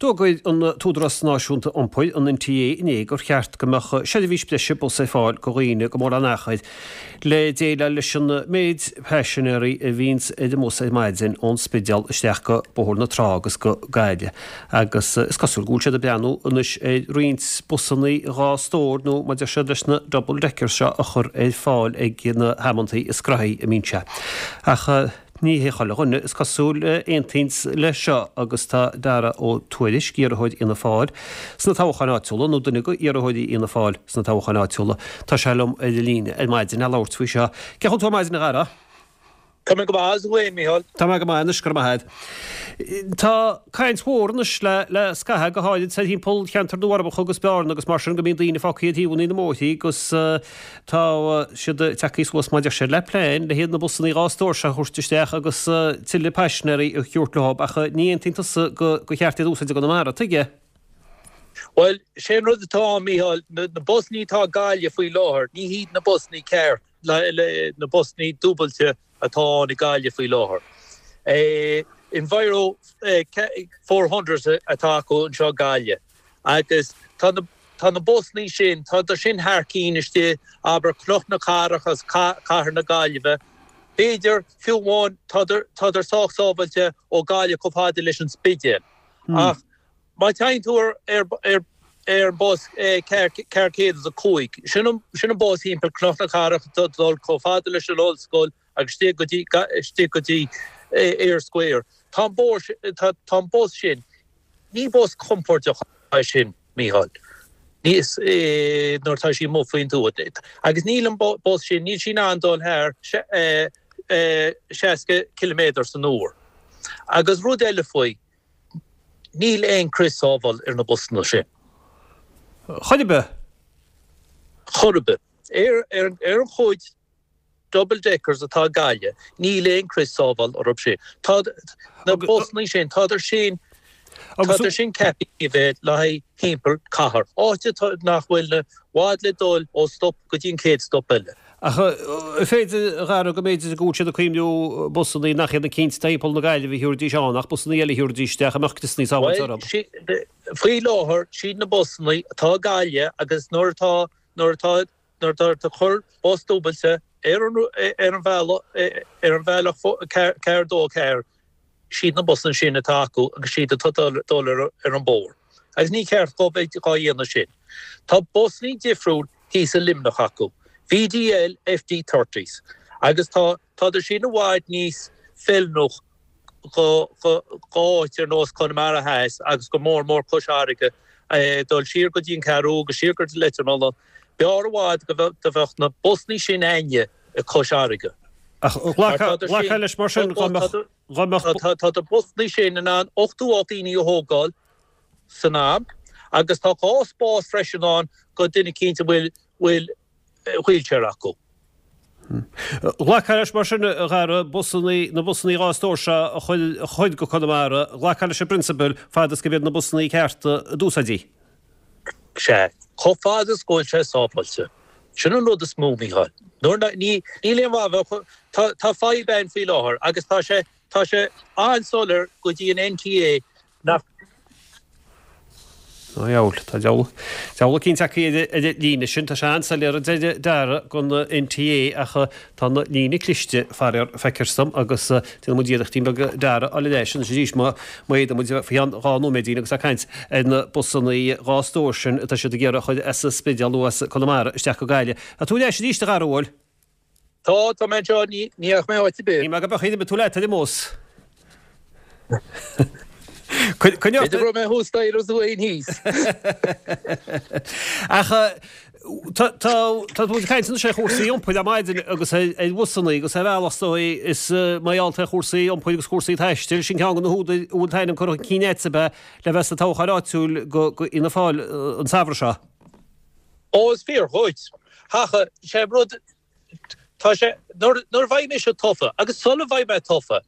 D'fhógair an tÚdarás Náisiúnta Iompair, an NTA, inné gur cheart go mbeadh seirbhís breise bus ar fáil go dhaoine go mórán achair le déileáil leis an méid paisinéirí a bhíonns ar an mbus ar maidin ón Spidéal isteach go Bóthar na Trá agus go Gaillimh agus is cosúil go bhfuil siad ag breathnú anois ar roinnt busannaí 2 stór nó mar a deir siad leis na double deckers seo a chur ar fáil ag na hamantaí is graithí a mbíonn sé. Ach. Ní hé chuile dhuine, is cosúil, a aontaíonns leis seo agus tá Dara Ó Tuairisg, iarrthóir Fhianna Fáil sna toghcháin áitiúla, nó duine de iarrthóirí Fhianna Fáil sna toghcháin áitiúla, tá sé liom ar an líne ar maidin le labhairt faoi seo. Cén chaoi a bhfuil tú ar maidin, a Dhara? Tá mé go maith, is tú féin, Mícheál? Tá mé go maith anois, go raibh maith agat. Tá caint mhór anois le le scaitheamh, go háirid thart timpeall cheantar na bhForbacha agus Bearna agus mar sin, go mbíonn daoine fágtha ar thaobhanna na mbóithrí agus Tá siad tagtha suas mar a deir siad le plean le haghaidh na busannaí 2 stór seo a thabhairt isteach agus tuilleadh paisinéirí a thabhairt leo ach ní aontaíonn tusa gur cheart iad a úsáid i gConamara, tuige? Bhuel, sé an rud atá ann, Mícheál, na busannaí atá i Gaillimh faoi láthair, ní hiad na busannaí ceart, na busannaí dúbailte atá ann i Gaillimh faoi láthair. Enviro 400 atá acu anseo i Gaillimh agus tá na Tá na busannaí sin, tádar sin thar cinn istigh, abair, Cnoc na Cathrach agus Cathair na Gaillimhe. B'fhéidir, fiú amháin, tádar, tádar sách sábhailte ó Gaillimh chomh fada leis an Spidéal. Ach má téann tú ar, ar, ar, ar an bus 405, sin an, sin an bus thimpeall Cnoc na Cathrach ag dul chomh fada leis an ollscoil agus istigh go dtí, istigh go dtí Eyre Square. Tá an bóthar sin, tá, tá an bus sin, ní bus compordach é sin. Mícheál. Níos nuair atá sí amuigh faoin tuath. Agus níl an bus sin, níl sí in ann dul thar 60 ciliméadar san uair. Agus rud eile faoi, níl aon crios sábhála ar na busanna sin. Chor ar bith? Chor ar bith. Ar an chuid double deckers atá i Gaillimh, níl aon crios sábhála orthu sin. Tá na busannaí sin, tádar sin, tádar sin ceaptha a bheith le haghaidh thimpeall cathair, áit atá, nach bhfuil i bhfad le dul ó stop go dtí an chéad stop eile. Ach an féidir, a Dhara, go mb'fhéidir go bhfuil siad ag cuimhniú busannaí nach iad na cinn atá thimpeall na Gaillimhe a thabharfaidís ann ach busannaí eile a thabharfaidís isteach a mbeadh criosannaí sábháilte orthu? Bhuel, faoi láthair, siad na busannaí atá i Gaillimh agus nuair atá, nuair atá, Nuair atá ag cur bus dúbailte ar an ar an bhealach ar an bhealach 4 2 4, siad na busanna sin atá acu agus siad atá dul ar ar an bóthar. Agus ní ceart dhóibh bheith dhá dhéanamh sin. Tá busannaí difriúil thíos i Luimneach acu, VDL FD thirties, agus tá tádar sin i bhfad níos feiliúnach go áit ar nós Conamara Theas agus go mór mór Cois Fharraige, dul siar go dtí an Cheathrú agus siar go dtí Leitir Mealláin. B'fhearr i bhfad go bheadh na busannaí sin a'inne i Cois Fharraige. Ach ghlacfá leis mar sin dá mbeadh. Tá na busannaí sin in ann 88 daoine a thógáil san am agus tá 2 spás freisin ann go duine eicínt a bhfuil wheelchair acu. Ghlacfá leis mar sin, a Dhara, busannaí, na busannaí 2 stór seo a chur go Conamara, ghlacfá leis i bprionsabal fad is go mb'iad na busannaí cearta a d'úsáidfí. Sea, chomh fada is go bhfuil sé sábháilte. Sin an rud is mó, Mícheál. Nuair ná, ní, níl aon mhaith a bheith, tá, tá fadhb ann faoi láthair agus tá sé, tá sé an-soiléir go dtí an NTA nach. Ó dheabhail, tá deabhal, deabhal eicínt acu ar an líne sin. Tá sé an-soiléir a deir Dara don NTA ach tá an líne cliste, faraor, feictear dom agus déanfaidh muid iarrachtín beag Dara a fháil ar ais anois arís má fhéadann muid faoi cheann 2 nóiméidín agus ag caint ar na busannaí 2 stór sin atá siad ag iarraidh a chur as an Spidéal nó as Conamara isteach go Gaillimh. Tá tú ar ais arís a Dhara, an bhfuil? Tá, tá mé anseo, ní dheachaigh mé áit ar bith. Ní maith go beadh iad, tú leat ar an mbus. Coinneoidh. B'fhéidir go raibh mé thuas staighre agus tú féin thíos. Ach tá tá tá muid ag caint anois ar chúrsaí iompair ar maidin agus ar ar bhusannaí agus ar bhealach is dóigh is mar gheall ar chúrsaí iompair agus cúrsaí taistil, sin ceann de na húdair a bhfuil t'ainm curtha chun cinn agat ab ea le bheith sa toghchán áitiúil go go Fhianna Fáil an samhradh seo. Ó, is fíor dhuit. Ach sé an rud, tá sé, nuair, nuair a bheidh mise tofa, agus sula bheidh mé tofa,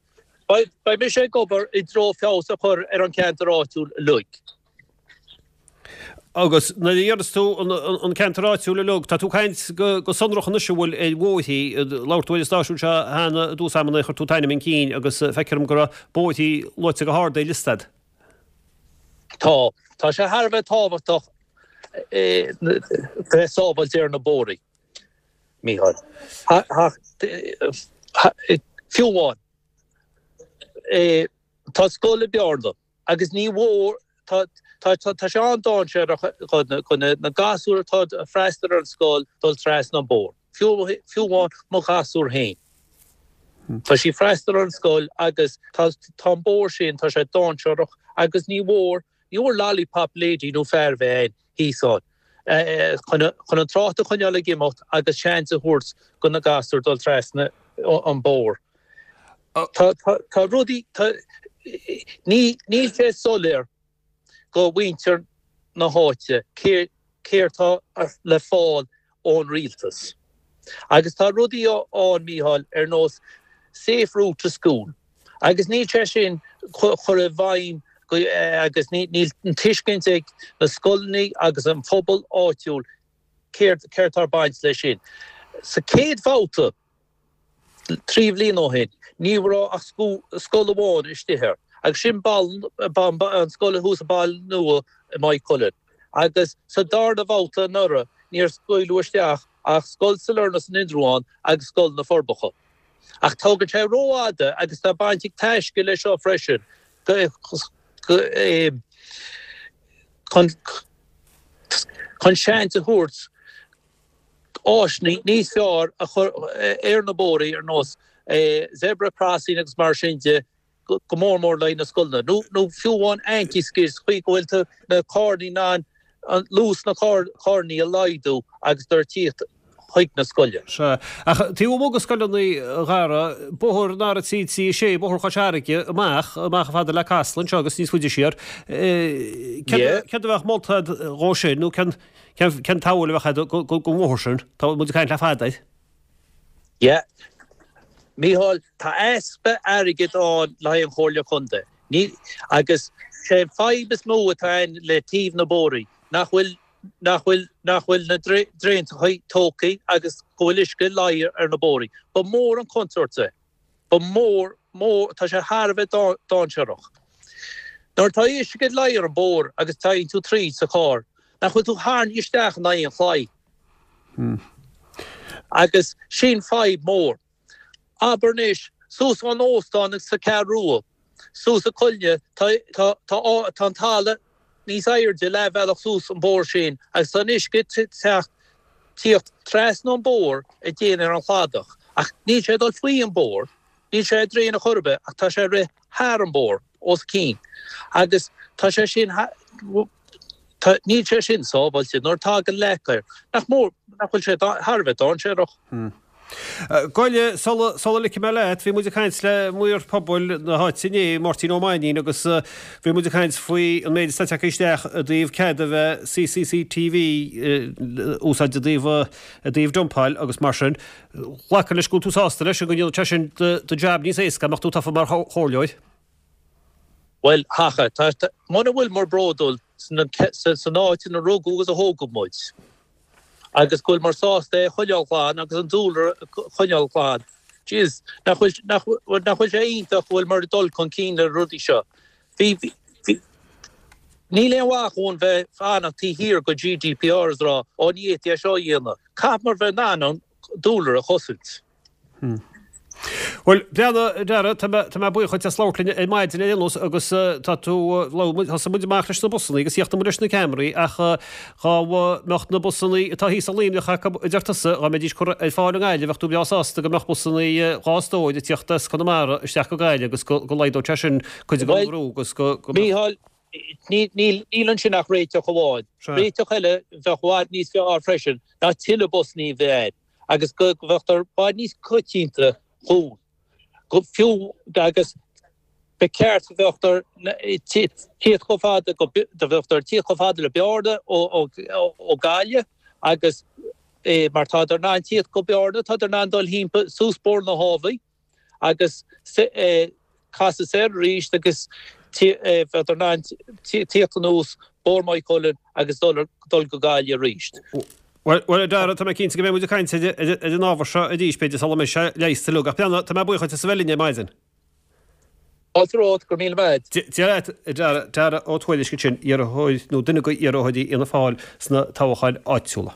beidh, beidh mise ag obair i dtreo feabhas a chur ar an cheantar áitiúil uilig. Agus nuair a deireas tú an, an, an ceantar áitiúil uilig, tá tú ag caint go, go sonrach anois an bhfuil ar bhóithrí, labhair tú ar an stáisiún seo cheana i dtús ama nuair a chuir tú t'ainm chun cinn agus feictear dom go raibh bóithrí luaite go hard ar liosta a'd. Tá. Tá sé thar a bheith tábhachtach bheith sábháilte ar na bóithre, Mícheál. Fiú amháin, tá scoil i Bearna agus ní mhór, tá sé an-dainséarach do na gasúir atá ag freastal ar an scoil dul trasna an bóthar. Fiú amháin mo ghasúr féin. Tá sí ag freastal ar an scoil agus tá an bóthar sin, tá sé dainséarach agus ní mhór, ní mhór lollipop lady nó fear a bheith ann thíos ann chun an trácht a choinneáil ag imeacht agus seans a thabhairt do na gasúir dul trasna an bóthar. Tá rudaí, tá, níl sé soiléir go mhuintir na háite céard tá le fáil ón rialtas. Agus tá rudaí ann, Mícheál, ar nós Safe Route to School agus níl sé sin curtha i bhfeidhm agus níl an tuiscint ag na scoileanna agus an phobal áitiúil céard tá ag baint leis sin. Sa chéad bhabhta, 3 bhliain ó shin, ní raibh ach scoil amháin istigh air, agus sin an scoil thuas i Baile Nua i Maigh Cuilinn. Agus sa darna bhabhta anuraidh, níor scaoileadh isteach ach Scoil Sailearna san Indreabhán agus Scoil na Forbacha. Ach tógann sé rófhada agus tá baint ag Taisce leis seo freisin chun seans a thabhairt áiseanna níos fearr a chur ar na bóithrí ar nós zebra crossing agus mar sin de, go mór mór le haghaidh na scoileanna, nó fiú amháin anti-skid sa chaoi go bhfuil tú na carranna in ann luas na carranna a laghdú agus iad ag tíocht chuig na scoile. Sea. Ach taobh amuigh de scoileanna, a Dhara, bóthar an R336, bóthar Chois Fharraige, amach, amach chomh fada le Casla anseo agus níos faide siar, céard a bheadh molta agat dhó sin, nó cén Cén tsamhail a bheadh agat don bhóthar sin? Tá muid ag caint le fada air. Yeah. Mícheál, tá easpa airgid ann le haghaidh an Chomhairle Contae. Ní, agus sé an fadhb is mó atá ann le taobh na bóithrí, nach bhfuil, nach bhfuil, nach bhfuil na draenachaí tógtha agus go bhfuil uisce ag luí ar na bóithrí. Ba mhór an contúirt é. Ba mhór, mór, tá sé thar a bheith dainséarach. Nuair atá uisce ag luí ar an bóthar agus téann tú tríd sa charr, nach bhfuil tú tarraingthe isteach in aghaidh an chlaí? Agus sin fadhb mór. Abair anois, suas ón óstán sa Cheathrú Rua, suas an coill, tá, tá, tá, tá an talamh níos airde leathbhealach suas an bóthar sin agus tá an uisce ag teacht, tíocht trasna an bóthar ag déanamh ar an chladach ach níl sé ag dul faoi an bóthar, níl sé ag draein chor ar bith ach tá sé ag rith thar an bóthar, os cionn agus tá sé sin, tá, níl sé sin sábháilte nuair atá tagann leac air, nach mór, nach bhfuil sé thar a bheith dainséarach. Gabh i leith, sula, sula ligfidh mé leat, bhí muid ag caint le maor pobail na háite inné, Máirtín Ó Mainnín, agus bhí muid ag caint faoi an méid atá tagtha isteach i dtaobh cead a bheith CCCTV a úsáid i dtaobh, i dtaobh dumpáil agus mar sin. Glacaim leis go bhfuil tú sásta leis, go ndéanfadh sé sin do, do jab níos éasca, dá mbeadh tú tofa mar chomhairleoir. Bhuel, thaca, tá, muna bhfuil muid bródúil san, san áit ina rugadh agus a thógadh muid, agus go bhfuil muid sásta é a choinneáil glan agus an dúlra a choinneáil glan. Jeez, nach bhfuil, nach, nach bhfuil sé iontach go bhfuil muid ag dul chun cinn le rudaí seo. Bhí, bhí, níl aon mhaith dhúinn bheith fanacht taobh thiar go GDPR is rá, ó ní fhéadfaí é seo a dhéanamh. Caithfidh muid bheith in ann an dúlra a chosaint. Bhuel, breathnaigh, a Dhara, tá mé, tá mé buíoch dhuit as labhairt linn ar maidin ar aon nós agus tá tú, labhair muid, thosaigh muid amach leis na busannaí agus chríochnaigh muid leis na ceamaraí ach dhá mbeadh na busannaí atá thíos i Luimneach acu, a deir tusa, dhá mbeidís curtha ar fáil i nGaillimh, bheadh tú breá sásta go mbeadh busannaí dhá stór ag tíocht as Conamara isteach go Gaillimh agus go, go laghdódh sé sin cuid den bhrú agus go, go mbeadh. Mícheál, níl, níl ansin ach réiteach amháin. Réiteach eile bheadh i bhfad níos fearr freisin ná tuilleadh busannaí a bheith ann. agus go mbeadh i bhfad níos coitianta dhúinn, go fiú agus ba cheart go mbeadh tíocht chomh fada go mbeadh tíocht chomh fada le Bearna ó Gaillimh agus mar tádar in ann tíocht go Bearna, tádar in ann dul thimpeall suas Bóthar na hÁbhaí. agus casadh soir arís agus bheadar in ann tíocht anuas Bóthar Mhaigh Cuilinn agus dul go Gaillimh arís. Bhuel, a Dhara, tá mé cinnte go mbeidh muid ag caint ar an ábhar seo arís, b'fhéidir, sula mbeidh sé leigheasta uilig. Ach breathnaigh, tá mé buíoch dhuit as a bheith linn ar maidin. Fáilte romhat, go raibh míle maith a't. Dia leat, a Dara, Dara Ó Tuairisg ansin, iarrthóir nó duine de iarrthóirí Fhianna Fáil sna toghcháin áitiúla.